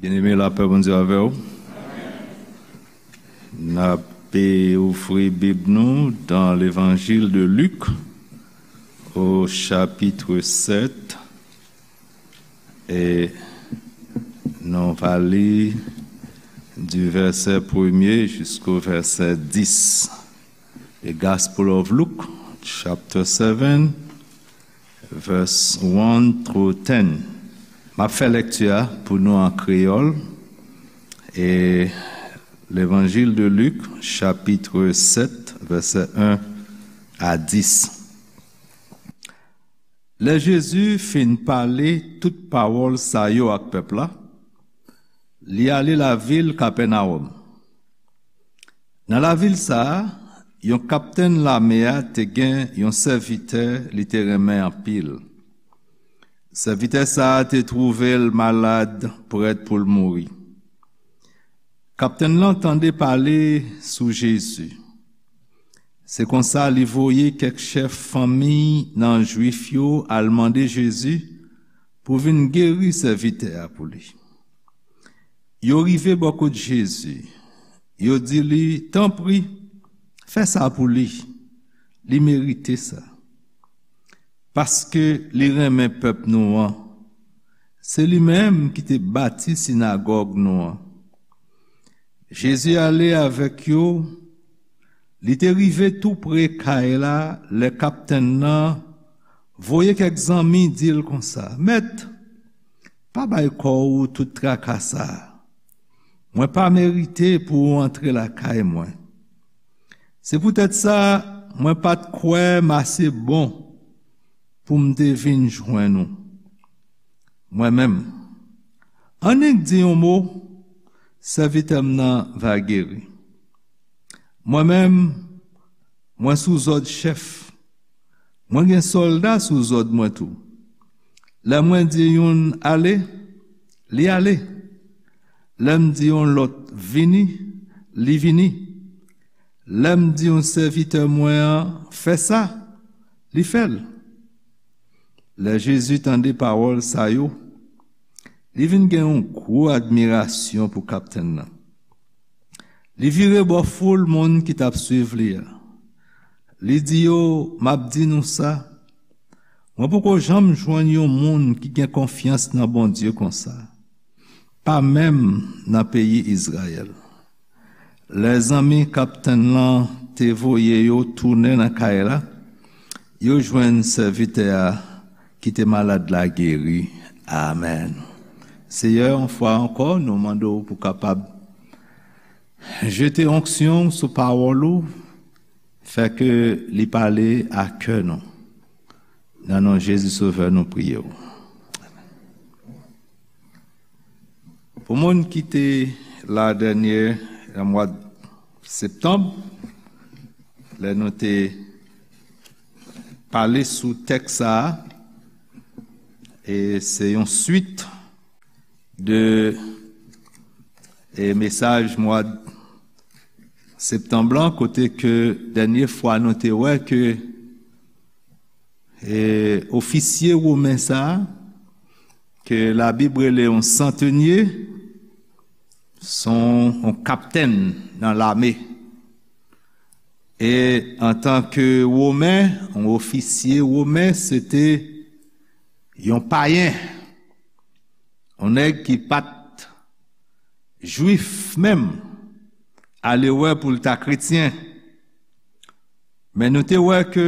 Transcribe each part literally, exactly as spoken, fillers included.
Byeneme, lapè Bondye avè w. N ap ouvri Bib nou dans l'Évangile de Luc, au chapitre sept, e nou va li du verset premier jusqu'au verset dix. The Gospel of Luke, chapter seven, verse one through ten. M ap fè lèkti a pou nou an kreyòl, e Levanjil de Lik, chapitre sept, verset un à dix. Lè Jezi fin pale tout pawòl sa yo ak pèp la, li ale lavil Kapènawòm. Nan lavil sa a, yon kaptenn lame a te gen yon sèvitè li te renmen anpil. Sèvitè sa a te twouve l malad, prèt pou l mouri. Kaptenn lan tande pale sou Jezi. Se konsa li voye kèk chèf fanmi nan Jwif yo al mande Jezi pou vin geri sèvitè a pou li. Yo rive bò kot Jezi. Yo di li, "Tanpri, fè sa pou li. Li merite sa. Paske li renmen pèp nou an. Se li menm ki te bati sinagòg nou an." Jezi ale avèk yo. Li te rive tou pre kay la lè kaptenn nan voye kèk zanmi di l konsa, "Mèt, pa bay kò w tout traka sa a. Mwen pa merite pou w antre lakay mwen. Se poutèt sa, mwen pa t kwè m ase bon pou m te vin jwenn ou. Mwen menm, annik di yon mo, sèvitè m nan va geri. Mwen menm, mwen sou zòd chèf. Mwen gen sòlda sou zòd mwen tou. Lè mwen di youn ale, li ale. Lè m di yon lòt vini, li vini. Lè m di yon sèvitè mwen an fè sa, li fè l." Lè Jezi tande pawòl sa yo, li vin gen yon gwo admirasyon pou kaptenn nan. Li vire bò foul moun ki t ap swiv li a. Li di yo, "M ap di nou sa, mwen poko janm jwenn yon moun ki gen konfyans nan Bondye konsa, pa menm nan peyi Izrayèl." Lè zanmi kaptenn lan te voye yo tounen nan kay la, yo jwenn sèvitè a ki te malad la geri. Amèn. Seyè, yon fwa ankò, nou mande w pou kapab jete onksyon sou pawòl ou, fè ke li pale a kè nou. Nan non Jezi Sovè nou priye w. Pou moun ki te la dènye nan mwa septanm, lè nou te pale sou tèks sa a, e se yon swit de, e, mesaj mwa septanm lan, kote ke dènye fwa nou te wè ke, e, ofisye women sa a, ke Labib rele yon santenye, se yon, yon kaptenn nan lame. E antanke women, yon ofisye women, se te yon payen, yon nèg ki pa t jwif menm, ale wè pou l ta kretyen. Men nou te wè ke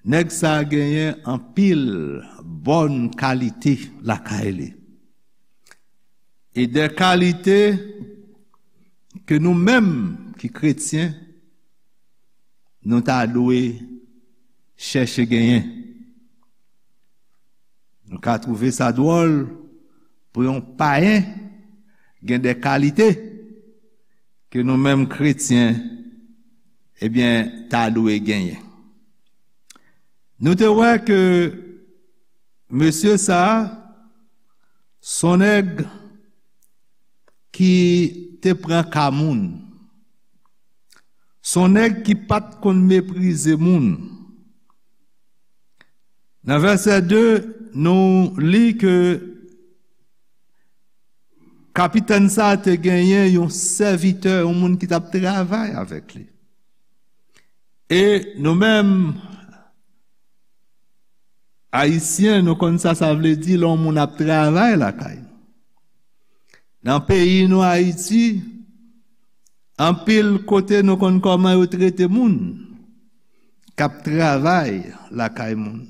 nèg sa a genyen anpil bòn kalite lakay li. E de kalite ke nou menm ki kretyen, nou ta dwe chèche genyen. Nou ka twouve sa dwòl pou yon payen gen de kalite ke nou menm kretyen, ebyen, ta dwe genyen. Nou te wè ke mesye sa a, se yon nèg ki te pran ka moun. Se yon nèg ki pa t konn meprize moun. Nan vèsè de, nou li ke Kapitèn sa a te genyen yon sèvitè, yon moun ki t ap travay avèk li. E nou menm, Ayisyen, nou konn sa sa vle di lè yon moun ap travay lakay nou. Nan peyi nou, Ayiti, anpil kote nou konn kòman yo trete moun k ap travay lakay moun.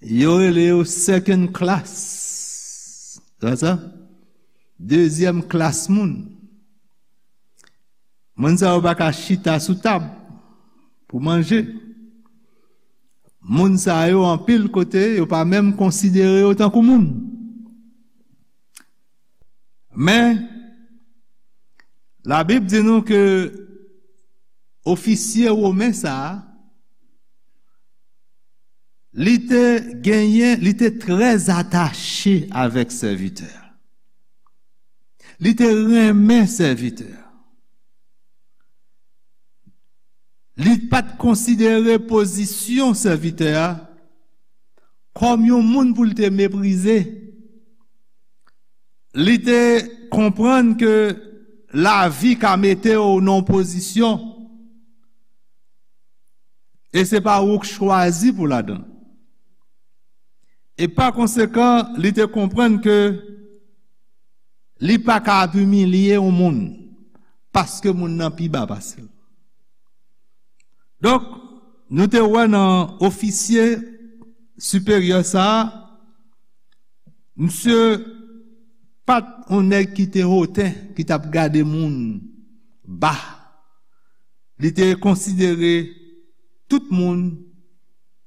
Yo rele yo second class. Sa sa? Dezyèm klas moun. Moun sa yo pa ka chita sou tab pou manje. Moun sa yo, anpil kote, yo pa menm konsidere yo tankou moun. Men, Labib di nou ke ofisye women sa a, li te genyen, li te trè atache avèk sèvitè a. Li te renmen sèvitè a. Li pa t konsidere pozisyon sèvitè a kòm yon moun pou l te meprize. Li te konprann ke lavi ka mete w nan yon pozisyon e se pa ou k chwazi pou ladan l. E pa konsekan, li te konprann ke li pa ka ap imilye yon moun paske moun nan pi ba pase l. Donk, nou te wè nan ofisye siperyè sa a, misye pa t yon nèg ki te hoten, ki t ap gade moun ba. Li te konsidere tout moun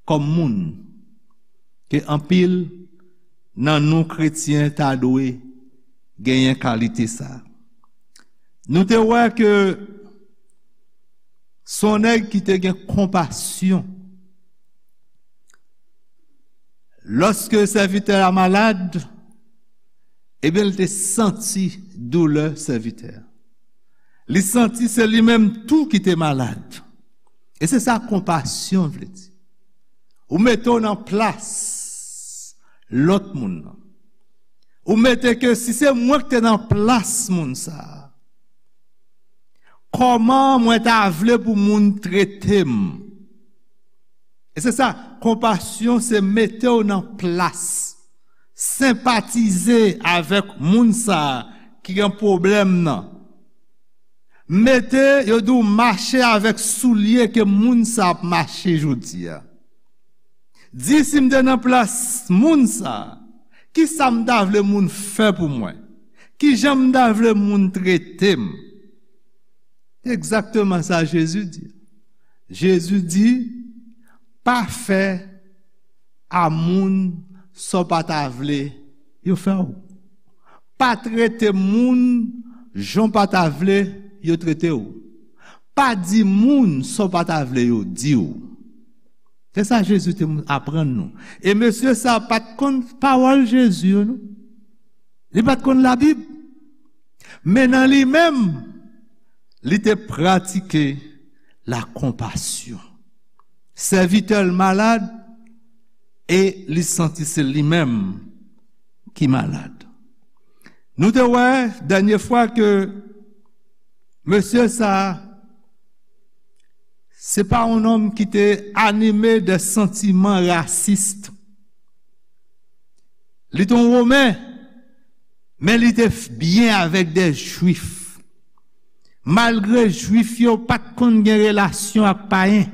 kòm moun, ke anpil nan nou kretyen ta dwe genyen kalite sa a. Nou te wè ke se yon nèg ki te gen konpasyon. Lòske sèvitè a malad, ebyen, li te santi doulè sèvitè a. Li santi se li menm tou ki te malad. E se sa konpasyon vle di. Ou mete w nan plas lòt moun nan. Ou mete ke si se mwen ki te nan plas moun sa a, kòman mwen ta vle pou moun trete m? E se sa, konpasyon se mete w nan plas, senpatize avèk moun sa a ki gen pwoblèm nan. Mete yo di w mache avèk soulye ke moun sa ap mache jodi a. Di si m te nan plas moun sa, ki sa m ta vle moun fè pou mwen? Ki jan m ta vle moun trete m? Egzakteman sa Jezi di. Jezi di, pa fè a moun sa w pa ta vle yo fè w. Pa trete moun jan w pa ta vle yo trete w. Pa di moun sa w pa ta vle yo di w. Se sa Jezi te aprann nou. E mesye sa pa t konn pawòl Jezi yo, non. Li pa t konn Labib. Men nan li menm, li te pratike lakonpasyon. Sèvitè l malad e li santi se li menm ki malad. Nou te wè dènye fwa ke mesye sa a, se pa yon nonm ki te anime de santiman rasis. Li te yon Women, men li te byen avèk de Jwif. Malgre Jwif yo pa t konn gen relasyon ak payen.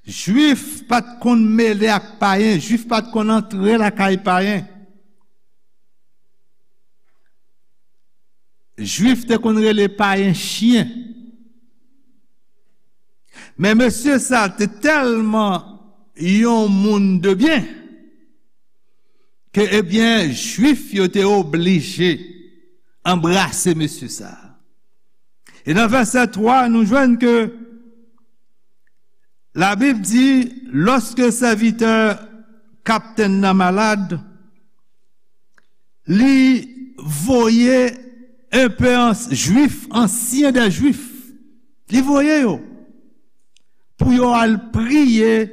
Jwif pa t konn mele ak payen, Jwif pa t konn antre lakay payen. Jwif te konn rele payen chen. Men mesye sa te tèlman yon moun de byen ke, ebyen, Jwif yo te oblije anbrase mesye sa. E nan vèsè twa, nou jwenn ke Labib di, lòske sèvitè kaptenn nan malad, li voye enpe Jwif, ansyen de Jwif, li voye yo pou yo al priye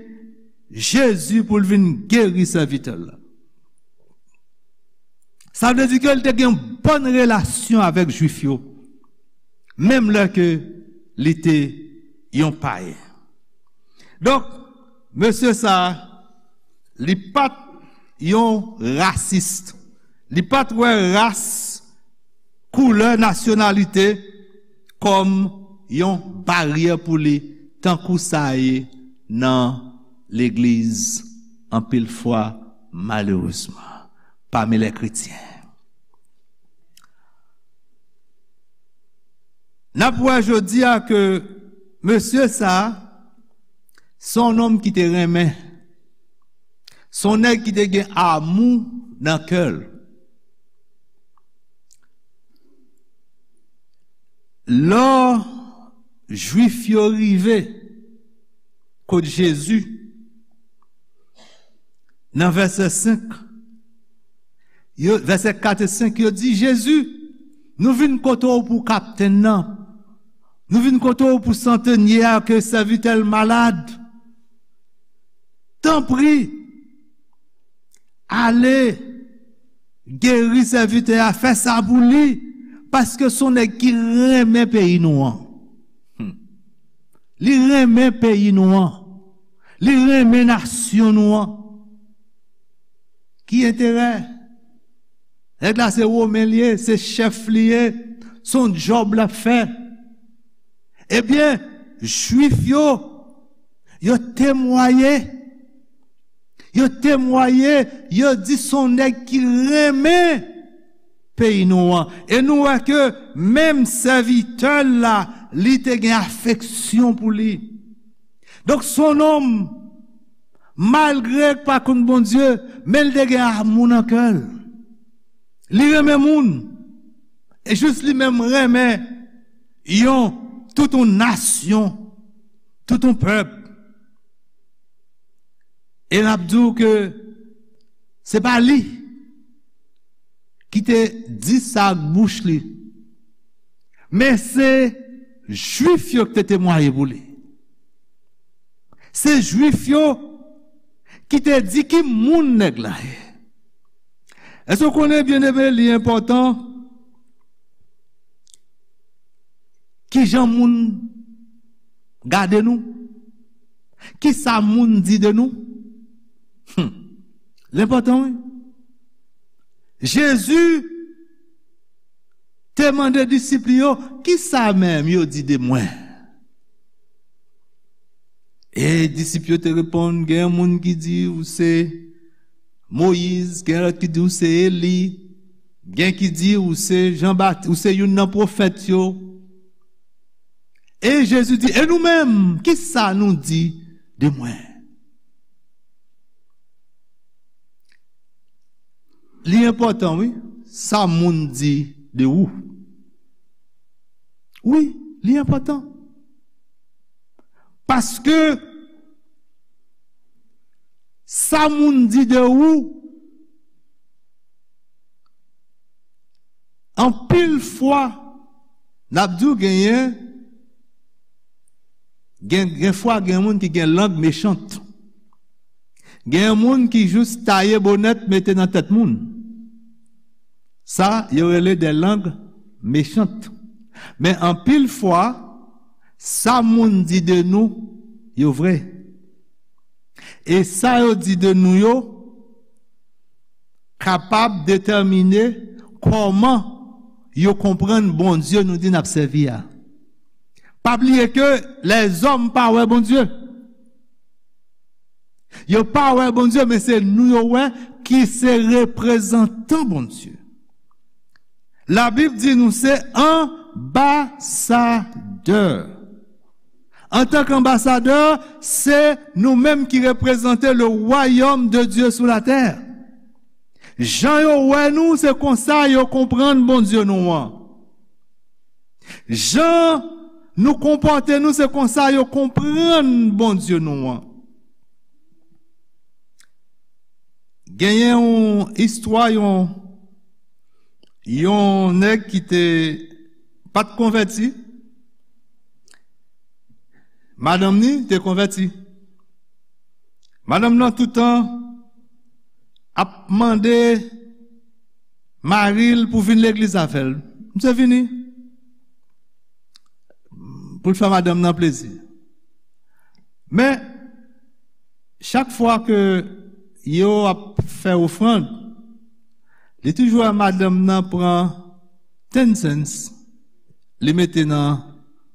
Jezi pou l vin geri sèvitè l la. Sa vle di ke li te gen bòn relasyon avèk Jwif yo, menm lè ke li te yon payen. Donk, mesye sa a, li pa t yon rasis. Li pa t wè ras, koulè, nasyonalite kòm yon baryè pou li, tankou sa ye nan legliz, anpil fwa, malerezman, pami lè kretyen. N ap wè jodi a ke mesye sa a, se yon nonm ki te renmen. Se yon nèg ki te gen amou nan kè l. Lò Jwif yo rive kot Jezi, nan vèsè senk, yo, vèsè kat e senk, yo di, Jezi, nou vin kote w pou kaptenn nan. Nou vin kote w pou santènye a, ke sèvitè l malad. Tanpri, ale geri sèvitè a, fè sa pou li, paske se yon nèg ki renmen peyi nou an. Hmm. Li renmen peyi nou an. Li renmen nasyon nou an. Ki enterè? Nèg la se Women li ye, se chèf li ye, se yon djòb l ap fè. Ebyen, Jwif yo, yo temwaye. Yo temwaye, yo di se yon nèg ki renmen peyi nou an. E nou wè ke menm sèvitè l la, li te gen afeksyon pou li. Donk, se yon nonm, malgre l pa konn Bondye, men l te gen amou nan kè l. Li renmen moun. E jis li menm renmen yon, tout yon nasyon, tout yon pèp. E n ap di w ke se pa li ki te di sa ak bouch li, men se Jwif yo ki te temwaye pou li. Se Jwif yo ki te di ki moun nèg la ye. Èske w konnen, byeneme, li enpòtan ki jan moun gade nou? Ki sa moun di de nou? Hmm. L enpòtan, wi. Jezi te mande disip li yo, ki sa menm yo di de mwen? E disip yo te reponn, gen moun ki di ou se Moyiz, gen lòt ki di ou se Eli, gen ki di ou se Jan Bat-, ou se youn nan pwofèt yo. E Jezi di, e nou menm, ki sa nou di de mwen? Li enpòtan, wi, sa moun di de ou. Wi, li enpòtan. Paske sa moun di de ou, anpil fwa, n ap di w genyen, gen, gen fwa gen moun ki gen lang mechant. Gen moun ki jis taye bonèt mete nan tèt moun. Sa, yo rele de lang mechant. Men anpil fwa, sa moun di de nou, yo vre. E sa yo di de nou yo, kapab detèmine kòman yo konprann Bondye nou di n ap sèvi a. Pa bliye ke lèzòm pa wè Bondye. Yo pa wè Bondye, men se nou yo wè ki se reprezantan Bondye. Labib di nou se anbasadè. Antanke anbasadè, se nou menm ki reprezante le royaume de Dieu sou la tè. Jan yo wè nou, se konsa yo konprann Bondye nou an. Jan nou konpòte nou, se konsa yo konprann Bondye nou an. Genyen yon istwa, yon, yon nèg ki te pa t konvèti. Madanm ni te konvèti. Madanm nan toutan ap mande mari l pou vin legliz avè l. Misye vini pou l fè madanm nan plezi. Men, chak fwa ke yo ap fè ofrann, li toujou wè madanm nan pran ten cents, li mete nan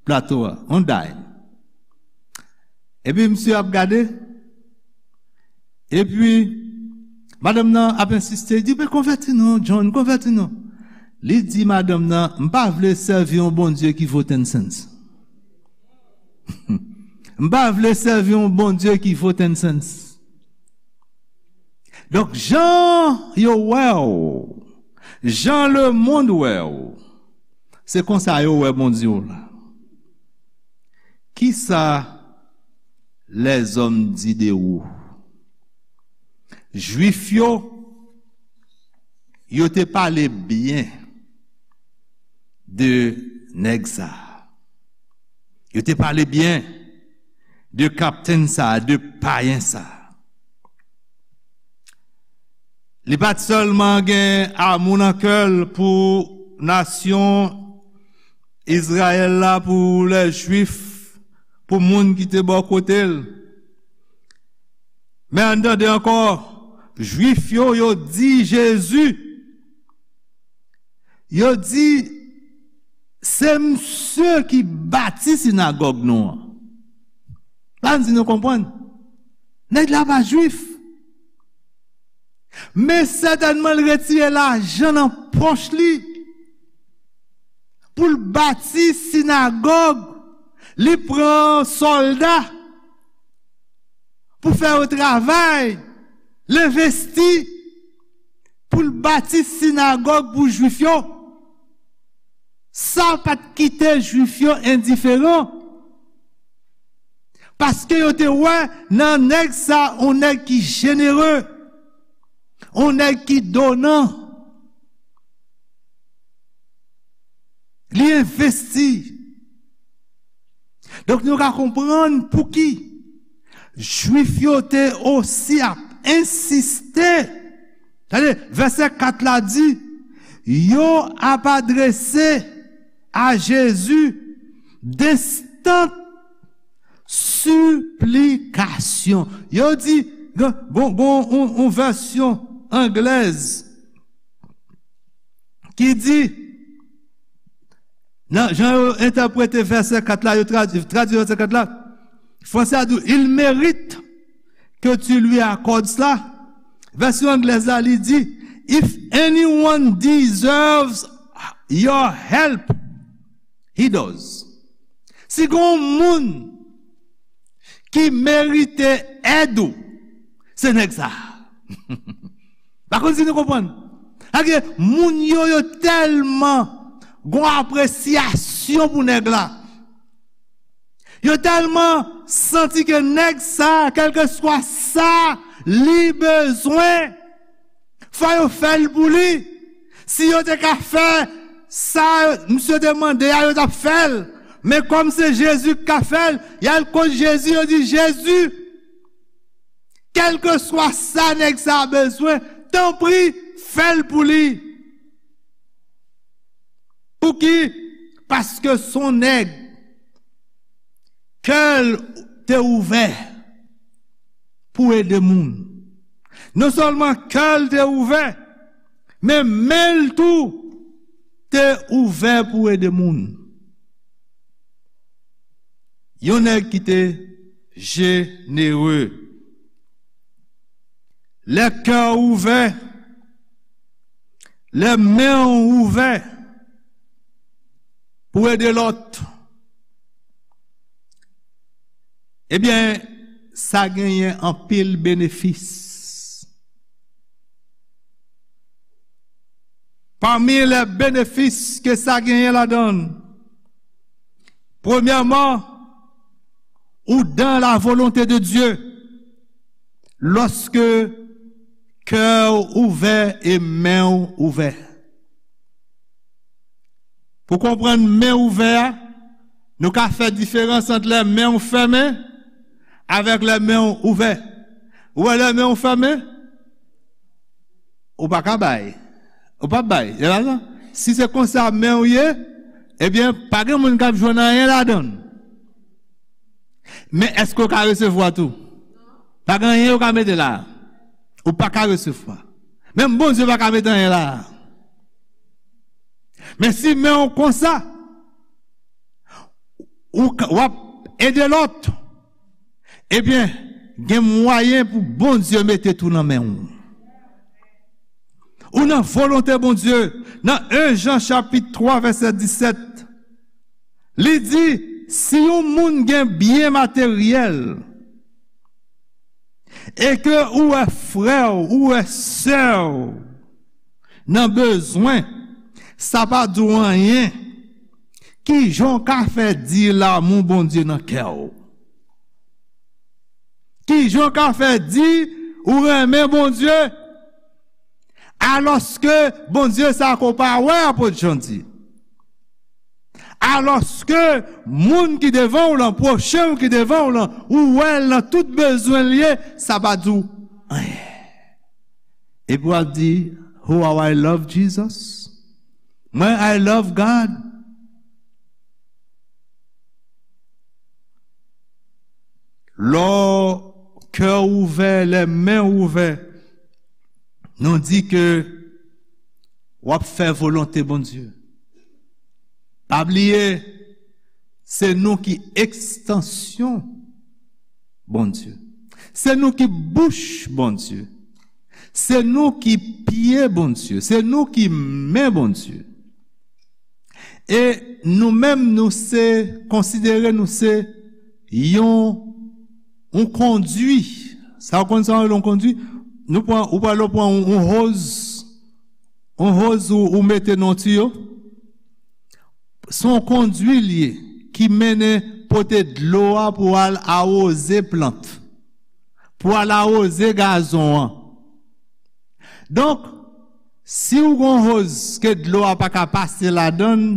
plato a, on dime. Epi misye ap gade, epi madanm nan ap ensiste, li di, "Men konvèti non, John, konvèti non." Li di madanm nan, "M pa vle sèvi yon Bondye ki vo ten cents." M pa vle sèvi yon Bondye ki vo ten cents. Donk, jan yo wè w, jan lemonn wè w, se konsa yo wè Bondye w la. Kisa lèzòm di de ou? Jwif yo, yo te pale byen de nèg sa. Yo te pale byen de kaptenn sa, de payen sa. Li pa t sèlman gen amou nan kè l pou nasyon Izrayèl la, pou lè Jwif, pou moun ki te bò kote l. Men ann tande ankò, Jwif yo, yo di Jezi, yo di, "Se misye ki bati sinagòg nou an." Ann di nou konprann. Nèg la pa Jwif. Men sètènman, l retire lajan nan pòch li pou l bati sinagòg. Li pran sòlda pou fè yo travay. L envesti pou l bati sinagòg pou Jwif yo. Sa pa t kite Jwif yo endiferan. Paske yo te wè nan nèg sa, yon nèg ki jenere, yon nèg ki donan. Li envesti. Donk, nou ka konprann pouki Jwif yo te osi ap ensiste. Tande, vèsè kat la di, yo ap adrese a Jezi denstant siplikasyon. Yo di, gon, gon, gon, yon, yon vèsyon anglèz ki di, nan jan yo entèprete vèsè kat la, yo tradui, tradui vèsè kat la, franse a di, "Il mérite que tu lui accordes cela." Vèsyon anglèz la, li di, "If anyone deserves your help, he does." Si gon moun ki merite èd ou, se nèg sa. Pa konn si nou konprann. Sa vle di, moun yo, yo tèlman gon apresyasyon pou nèg la. Yo tèlman santi ke nèg sa, kèlkeswa sa li bezwen, fò yo fè l pou li. Si yo te ka fè sa misye te mande a, yo t ap fè l. Men kòm se Jezi k ka fè l, y al kot Jezi, yo di, "Jezi, kèlkeswa sa nèg sa bezwen, tanpri, fè l pou li." Pouki? Paske s on nèg kè l te ouvè pou ede moun. Non sèlman kè l te ouvè, men men l tou te ouvè pou ede moun. Yon nèg ki te jenere. Lè kè w ouvè, lè men w ouvè pou ede lòt, ebyen, sa genyen anpil benefis. Pami lè benefis ke sa genyen ladan l, premyèman, ou dans la volonté de Dieu lòske kè w ouvè e men w ouvè. Pou konprann men ouvè a, nou ka fè diferans ant lè men w fèmen avèk lè men w ouvè. Ou wè lè men w fèmen, ou pa ka bay. Ou p ap bay. Se pa sa? Si se konsa men w ye, ebyen, pa gen moun k ap jwenn anyen ladan l. Men èske w ka resevwa tou? Pa gen anyen yo ka mete la. Ou pa ka resevwa. Menm Bondye pa ka mete anyen la. Men si men w konsa, ou ka, w ap ede lòt, ebyen, gen mwayen pou Bondye mete tou nan men w. Ou nan volonte Bondye, nan en Jan chapit twa vèsè disèt, li di, si yon moun gen byen materyèl, e ke ou wè frè w, ou wè sè w nan bezwen, sa pa di w anyen, kijan w ka fè di lanmou Bondye nan kè w? Kijan w ka fè di ou renmen Bondye, alòske Bondye sa ke w pa wè, apot Jan di? Alòske moun ki devan w lan, pwochen w ki devan w lan, ou wè l nan tout bezwen l ye, sa pa di w anyen. Epi w ap di, "Oh, how I love Jesus. Mwen, I love God." Lè kè w ouvè, lè men w ouvè, nou di ke w ap fè volonte Bondye. Pa bliye, se nou ki ekstansyon Bondye. Se nou ki bouch Bondye. Se nou ki pye Bondye. Se nou ki men Bondye. E nou menm, nou se, konsidere nou se yon, yon kondwi. Sa w konn sa w rele yon kondwi? Nou pran, ou pral pran yon, yon hose, yon hose ou, ou mete nan tiyo. Se yon kondwi l ye ki mennen pote dlo a pou al awoze plant, pou al awoze gazon an. Donk, si w gon hose ke dlo a pa ka pase ladan l,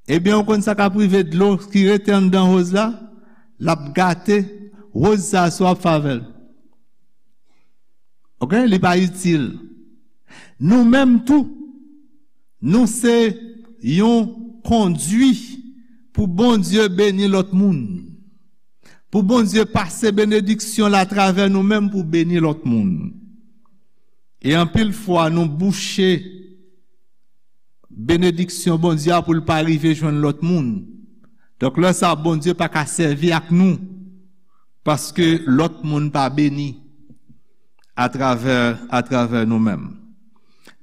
ebyen, w konn sa k ap rive dlo ki rete anndan hose la, l ap gate hose sa a si w ap fè avè l. Oke? Li pa itil. Nou menm tou, nou se yon kondwi pou Bondye beni lòt moun. Pou Bondye pase benediksyon l atravè nou menm pou beni lòt moun. E anpil fwa, nou bouche benediksyon Bondye a pou l pa rive jwenn lòt moun. Donk, lè sa a, Bondye pa ka sèvi ak nou, paske lòt moun pa beni atravè, atravè nou menm.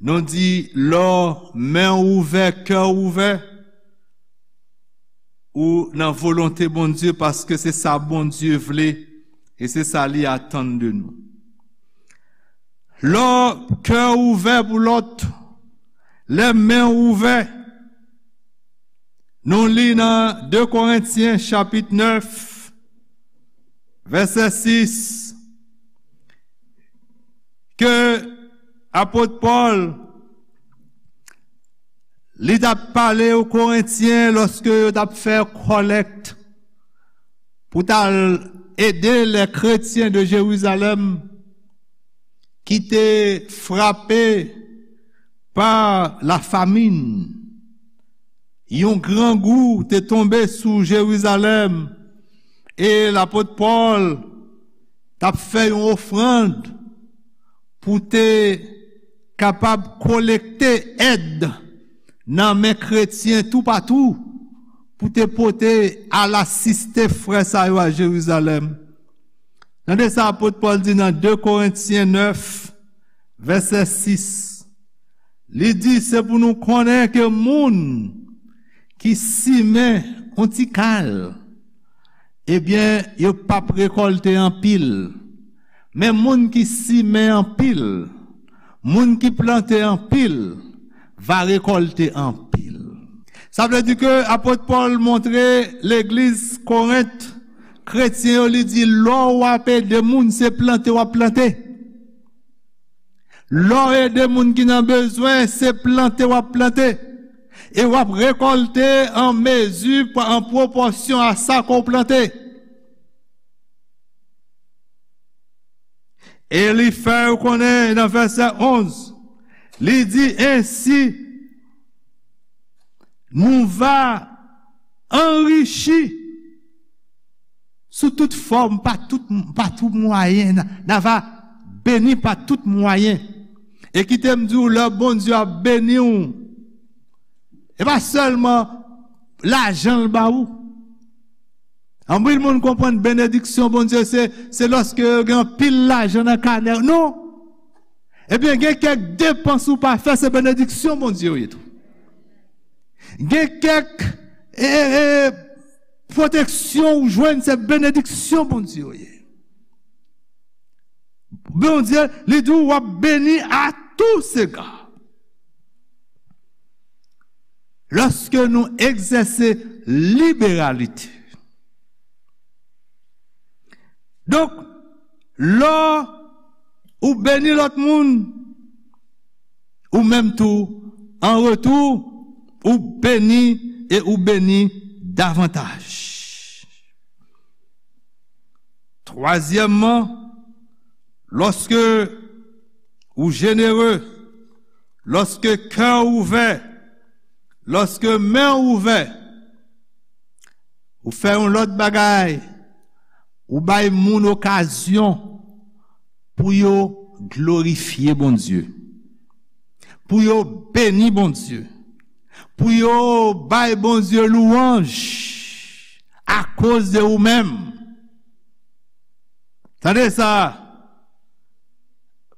Nou di, lè men w ouvè, kè w ouvè, ou nan volonte Bondye, paske se sa Bondye vle e se sa li atann de nou. Lè kè w ouvè pou lòt, lè men w ouvè, nou li nan de Korentyen chapit nèf, vèsè sis, ke apot Pòl, li t ap pale o Korentyen lòske yo t ap fè kòlèkt pou t al ede lè kretyen de Jerizalèm ki te frape pa lafamin. Yon grangou te tonbe sou Jerizalèm e lapot Pòl t ap fè yon ofrann pou te kapab kolekte èd nan men kretyen toupatou pou te pote al asiste frè sa yo a Jerizalèm. Tande sa apot Pòl di nan de Korentyen nèf, vèsè sis. Li di, se pou nou konnen ke moun ki simen yon ti kal, ebyen, yo p ap rekòlte anpil. Men moun ki simen anpil, moun ki plante anpil, va rekòlte anpil. Sa vle di ke apot Pòl montre legliz Korent, kretyen yo, li di, lè w ap ede moun, se plante w ap plante. Lè w ede moun ki nan bezwen, se plante w ap plante. E w ap rekòlte an mezi, an pwopòsyon a sa ke w plante. E li fè yo konnen nan vèsè onz, Li di, ensi, nou va anrichi sou tout fòm, pa tout, pa tout mwayen, n a, n a va beni pa tout mwayen. E kite m di w, lè Bondye ap beni w, e pa sèlman lajan l ba ou. Anpil moun konprann benediksyon Bondye se, se lòske yo gen anpil lajan nan kanè. Non. Ebyen, gen kèk depans ou pa fè, se benediksyon Bondye yo ye tou. Gen kèk, e, e, e, pwoteksyon ou jwenn, se benediksyon Bondye yo ye. Bondye, li di w ap beni a tou sega. Lòske nou egzèse liberalite. Donk, lè ou beni lòt moun, ou menm tou, an retou, ou beni e ou beni davantaj. Twazyèmman, lòske ou jenere, lòske kè w ouvè, lòske men w ouvè, ou fè yon lòt bagay, ou bay moun okazyon pou yo glorifye Bondye, pou yo beni Bondye, pou yo bay Bondye louwanj akoz de ou menm. Tande sa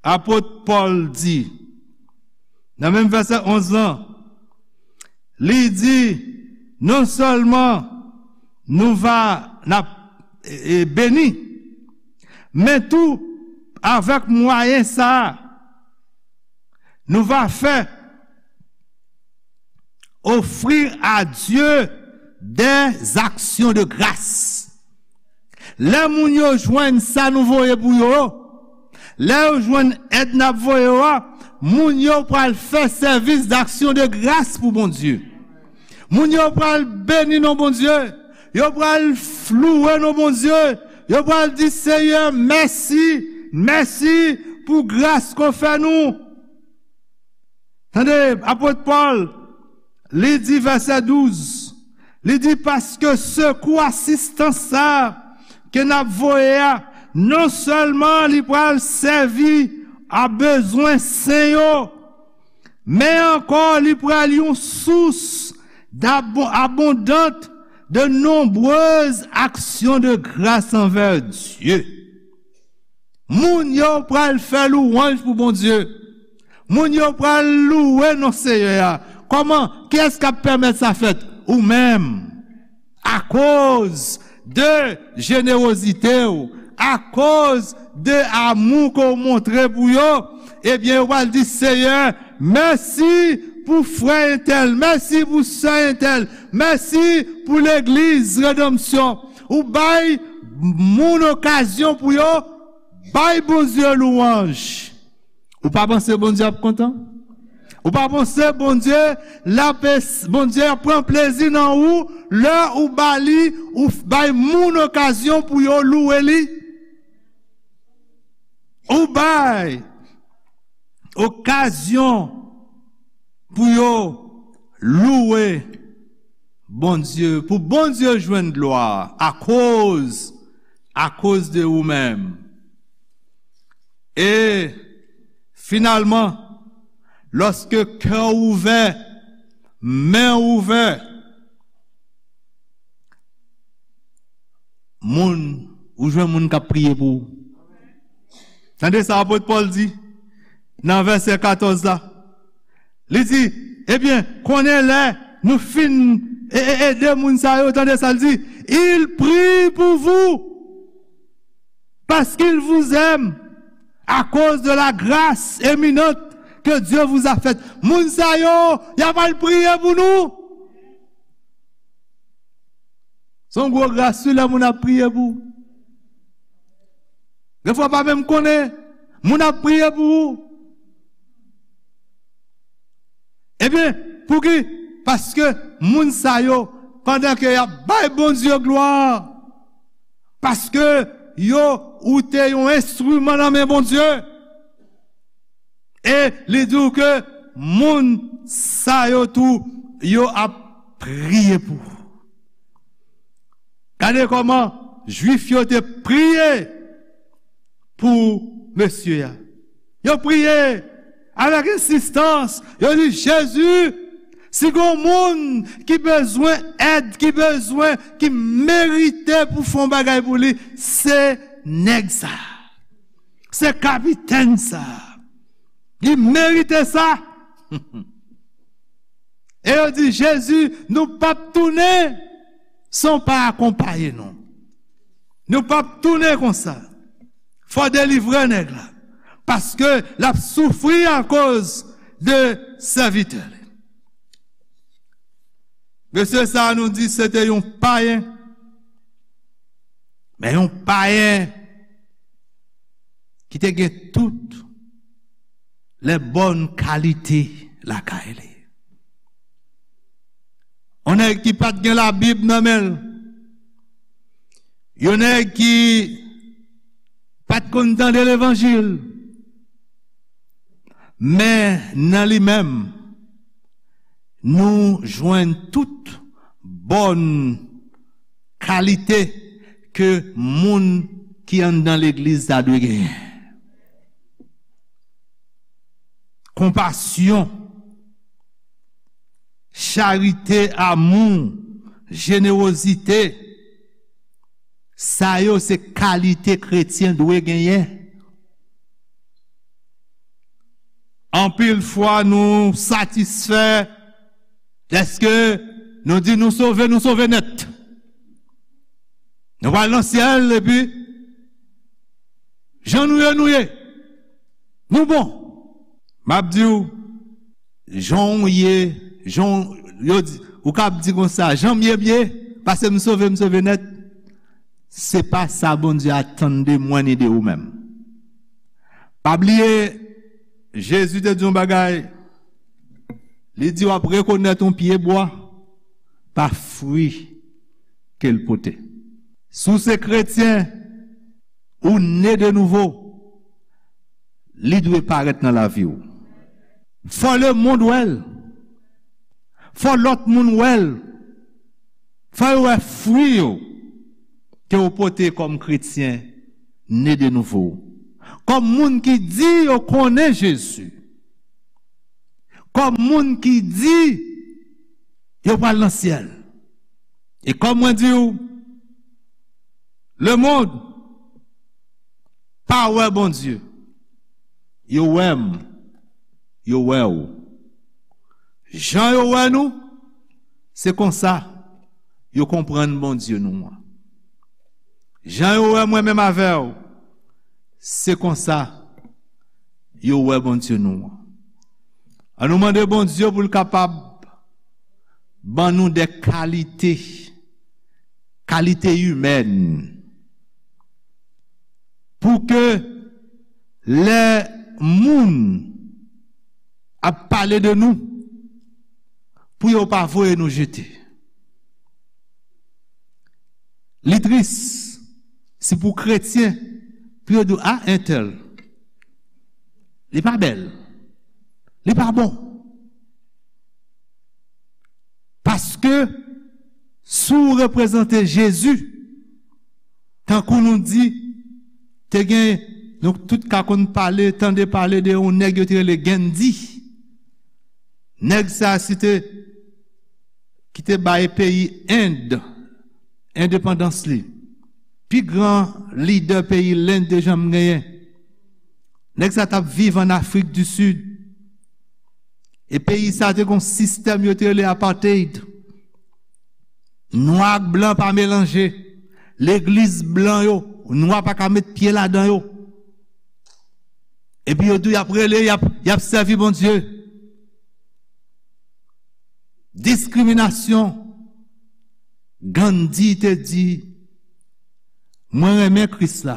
apot Pòl di nan menm vèsè onz lan. Li di, non sèlman nou va, n ap, e, e, beni, men tou, avèk mwayen sa a, nou va fè offrir à Dieu des actions de grâce. Lè moun yo jwenn sa nou voye pou yo, lè yo jwenn èd n ap voye yo a, moun yo pral fè sèvis d'action de grâce pou Bondye. Moun yo pral beni non Bondye. Yo pral f-, louwe non Bondye. Yo pral di, Seyè, mèsi, mèsi pou gras ke w fè nou. Tande, apot Pòl, li di vèsè douz, li di, paske sekou asistans sa a ke n ap voye a, non sèlman li pral sèvi a bezwen sen yo, men ankò li pral yon sous d'abon-, abondante de nombreuses actions de grâce envers Dieu. Moun yo pral fè louwanj pou Bondye. Moun yo pral louwe non Seyè a. Kòman? Kiyès k ap pèmèt sa fèt? Ou menm. Akoz de jenerozite w, akoz de amou ke w montre pou yo, ebyen, yo pral di, Seyè, mèsi pou frè entèl, mèsi pou sè entèl, mèsi pou legliz Redanmsyon. Ou bay moun okazyon pou yo bay Bondye louwanj. Ou pa panse Bondye ap kontan? Ou pa panse Bondye, l ap es-, Bondye ap pran plezi nan ou lè ou ba li, ou f-, bay moun okazyon pou yo louwe li? Ou bay okazyon pou yo louwe Bondye, pou Bondye jwenn glwa akoz, akoz de ou menm. E finalman, lòske kè w ouvè, men w ouvè, moun, ou jwenn moun k ap priye pou ou. Tande sa apot Pòl di nan vèsè katòz la. Li di, ebyen, konnen lè nou fin e, e, ede moun sa yo, tande sa l di, il prie pour vous, parce qu'il vous aime, à cause de la grâce éminente que Dieu vous a faite. Moun sa yo, y ap al priye pou nou. Se yon gwo gras wi lè moun ap priye pou ou. Gen fwa w pa menm konnen, moun ap priye pou ou. Ebyen, pouki? Paske moun sa yo, pandan ke y ap bay Bondye glwa, paske yo, ou te yon enstriman nan men Bondye. E li di w ke Moun sa yo tou, yo ap priye pou ou. Gade kòman Jwif yo te priye pou mesye a. Yo priye avèk ensistans. Yo di, Jezi, si gen moun ki bezwen èd, ki bezwen, ki merite pou fè yon bagay pou li, se nèg sa. Se kapitèn sa. Li merite sa. E yo di, Jezi, nou p ap tounen san w pa akonpaye nou. Nou p ap tounen konsa. Fò w delivre nèg la. Paske l ap soufri akoz de sèvitè li. Mesye sa a nou di se te yon payen. Men yon payen ki te gen tout lè bòn kalite lakay li. Yon nèg ki pa t gen Labib nan men l. Yon nèg ki pa t konn tande levanjil. Men nan li menm, nou jwenn tout bòn kalite ke moun ki anndan legliz la dwe genyen. Konpasyon, charite, amou, jenewozite, sa yo se kalite kretyen dwe genyen. Anpil fwa nou satisfè dèske nou di nou sove, nou sove nèt. Nou pral nan syèl epi jan nou ye, nou ye. Nou bon. M ap di w, jan w ye, jan w, yo di, ou kab di konsa, jan m ye, m ye, paske m sove, m sove nèt. Se pa sa Bondye atann de mwen ni de ou menm. Pa bliye, Jezi te di yon bagay. Li di w ap rekonèt yon pye bwa pa fwi ke l pote. Si w se kretyen, ou ne de nouvo, li dwe parèt nan lavi w. Fò lemonn wè l. Fò lòt moun wè l. Fò yo wè fwi yo ke w pote kòm kretyen ne de nouvo. Kòm moun ki di yo konnen Jezi. Kòm moun ki di yo pral nan syèl. E kòm mwen di w, lemonn pa wè Bondye. Yo wè m, yo wè w. Jan yo wè nou, se konsa yo konprann Bondye nou an. Jan yo wè mwen menm avè w, se konsa yo wè Bondye nou an. An nou mande Bondye pou l kapab ban nou de kalite, kalite imèn, pou ke lè moun ap pale de nou, pou yo pa voye nou jete. Li tris, si pou kretyen, pou yo di w, a, entèl, li pa bèl, li pa bon. Paske, si w reprezante Jezi, tankou nou di, te gen, nou tout ka konn pale, tande pale de yon nèg yo te rele Gandhi. Nèg sa a, se te, ki te bay peyi End endepandans li. Pi gran lidè peyi Lenn te janm genyen. Nèg sa t ap viv ann Afrik di Sid. E peyi sa te gon sistèm yo te rele apartheid. Nwa ak blan pa melanje. Legliz blan yo, nwa pa ka met pye ladan yo. Epi yo tou y ap rele, y ap, y ap sèvi Bondye. Diskriminasyon. Gandhi te di, mwen renmen Kris la,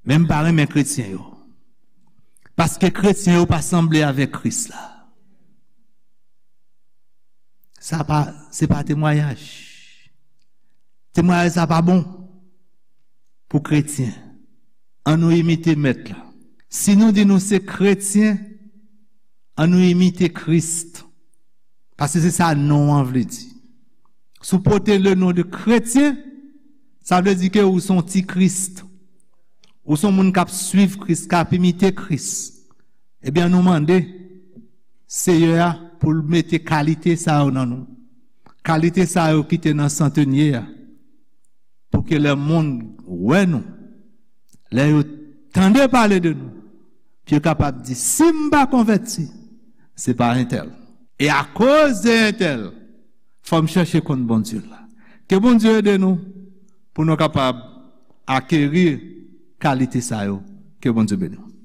men m pa renmen kretyen yo. Paske kretyen yo pa sanble avèk Kris la. Sa pa, se pa temwayaj. Temwayaj sa pa bon pou kretyen. An nou imite Mèt la. Si nou di nou se kretyen, Ann nou imite Kris. Paske se sa non an vle di. Si w pote le non de kretyen, sa vle di ke ou se yon ti Kris. Ou se yon moun k ap swiv Kris, k ap imite Kris. Ebyen, nou mande Seyè a pou l mete kalite sa yo nan nou. Kalite sa yo ki te nan santenye a. Pou ke lè moun wè nou, lè yo tande pale de nou, pou yo kapab di, "Si m pa konvèti, se pa entèl. E akoz de entèl, fò m chèche konn Bondye la." Ke Bondye ede nou pou nou kapab akeri kalite sa yo. Ke Bondye beni w.